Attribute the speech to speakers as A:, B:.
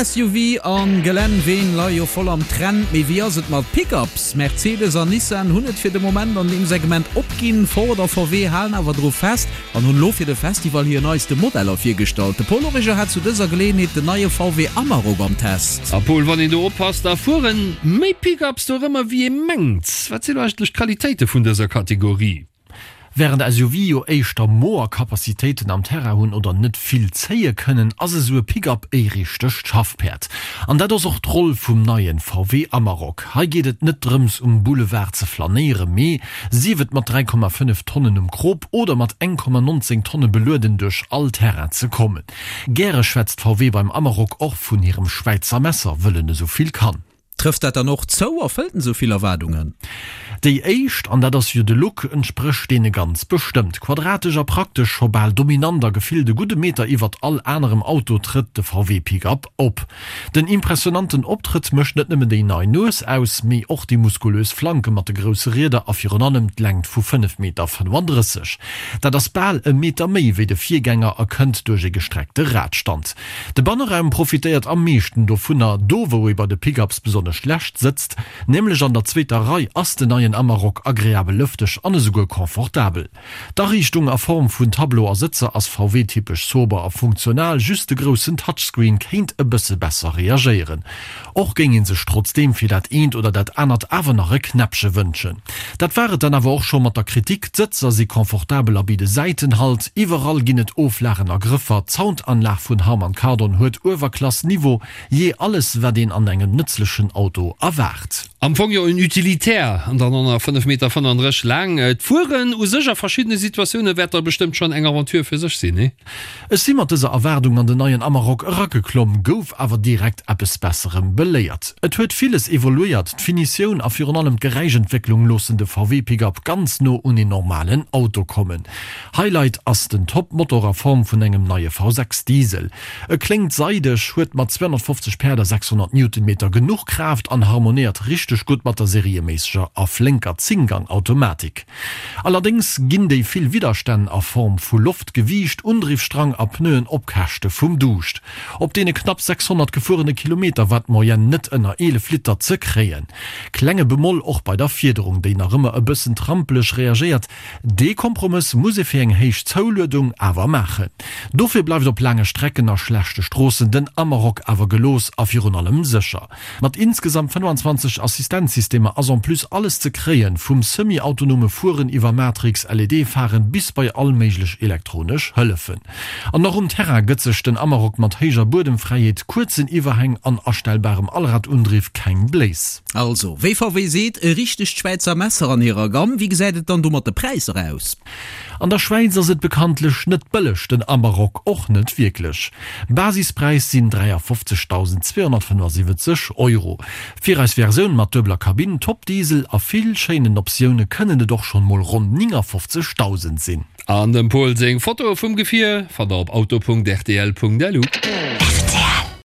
A: SUV an Gelänn-Ween leie jo voll am Trend, mee wéi ass et mat Pickups? Mercedes an Nissan hunn et fir de Moment an deem Segment opginn, Ford a VW halen awer dru fest an hunn elo fir de Festival hir neiste Modeller virgestallt. De Paul Origer hat zu dëser Geleeënheet den neie VW Amarok am Test.
B: A Paul, wann een do oppasst, da fueren méi Pickups dorëmmer wéi ee mengt. Wat sinn eigentlech d'Qualitéite vun dëser Kategorie?
C: Wärend SUV jo éischter moer Capacitéiten am Terrain hunn oder net vill zéie kënnen, ass esou e Pick-up e richtegt Schaffpäerd. An dat ass och d'Roll vum neien VW Amarok. Hei geet et net drëms um Boulevard ze flanéiere mee, sief et mat 3,5 Tonnen um Krop oder mat 1,19 Tonne belueden duerch all Terrain ze kommen. Gäre schwätzt VW beim Amarok och vun hirem Schwäizer Messer, wëll en esou vill kann.
A: Trëfft dat dann och zou? Erfëllt en esou vill Erwaardungen?
C: Déi éischt, an dat ass jo de Look, entsprécht deene ganz bestëmmt. Quadratesch a praktesch, scho bal dominant a gefillt e gudde Meter iwwert all anerem Auto trëtt de VW Pick-up op. Den impressionanten Optrëtt mécht net nëmmen déi nei Nues aus, mee och déi muskulös Flanke mat de grousse Rieder a virun allem d'Längt vu 5 Meter 35. Dat ass bal e Meter méi wéi de Virgänger a kënnt duerch e gestreckte Radstand. De Banneraum profitéiert am meeschten dovunner. Do wou ee bei de Pickups besonnesch schlecht sëtzt, nämlech an der zweeter Rei, ass den neien Amarok agreabel lëfteg an esouguer confortabel. D'Ariichtung a Form vun Tableau a Sëtzer ass VW-typesch sober a funktional, just de groussen Touchscreen kéint e bësse besser reagéieren. Och géing ee sech trotzdeem fir dat eent oder dat anert awer nach e Knäppche wënschen. Dat war et dann awer och scho mat der Kritik, D'Sëtzer si confortabel a bidde Säitenhalt, iwwerall ginn et Oflagen a Grëffer, d'Soundanlag vun Harman Kardon huet Uewerklass-Niveau, jee alles wat een an engem nëtzlechen Auto erwaart.
B: Am Fong jo en Utilitaire an dann och nach 5 Meter 35 laang. D'Fueren u sech a verschiddene Situatioune wäert da bestëmmt schonn eng Aventure fir sech sinn, nee?
C: Ech si mat dëser Erwaardung an den neien Amarok erageklomm, gouf awer direkt eppes Besserem beléiert. Et huet villes evoluéiert, d'Finitioun a virun allem d'Geräischentwécklung loossen de VW Pick-up ganz no un een normalen Auto kommen. Highlight ass den Top-Motor a Form vun engem neie V6 Diesel. E kléngt seideg, huet mat 250 Päerd a 600 Newtonmeter genuch Kraaft an harmonéiert richteg gutt mat der serieméisseger a flénker Zénggang-Automatik. Allerdéngs ginn déi vill Widderstänn a Form vu Loft, Gewiicht, Undriffstrang a Pneuen op Käschte vum Duuscht. Op deene knapp 600 gefuerene Kilometer war d'Moyenne net ënner 11 Liter ze kréien. Klenge Bemoll och bei der Fiederung, déi nach ëmmer e bëssen trampeleg reagéiert. Dee Kompromëss muss ee fir eng héich Zouluedung awer maachen. Dofir bleift op laange Strecken a schlechte Stroossen den Amarok awer gelooss a virun allem sécher. Mat insgesamt 25 Assistenzsystemer ass en plus alles ze kréien, vum semi-autonome Fueren iwwer Matrix, LED-Pharen bis bei all méiglech elektronesch Hëllefen. An och um Terrain gëtt sech den Amarok mat héijer Buedemfräiheet, kuerzen Iwwerhäng an astellbarem Allradundriff keng Bléis.
A: Also, wéi VW seet, e richtegt Schwäizer Messer an hirer Gamm. Wéi gesäit et dann do mat de Präisser aus?
C: An der Schwäiz ass et bekanntlech net bëlleg, den Amarok och net wierklech. Basispräis sinn 53.275 Euro. Fir eis Versioun mat duebeler Kabinn, Top-Diesel a vill schéinen Optioune kënnen et och schonn mol ronn 59.000 sinn.
B: An dem Pol seng Fotoe vum Gefier fannt der op auto.rtl.lu.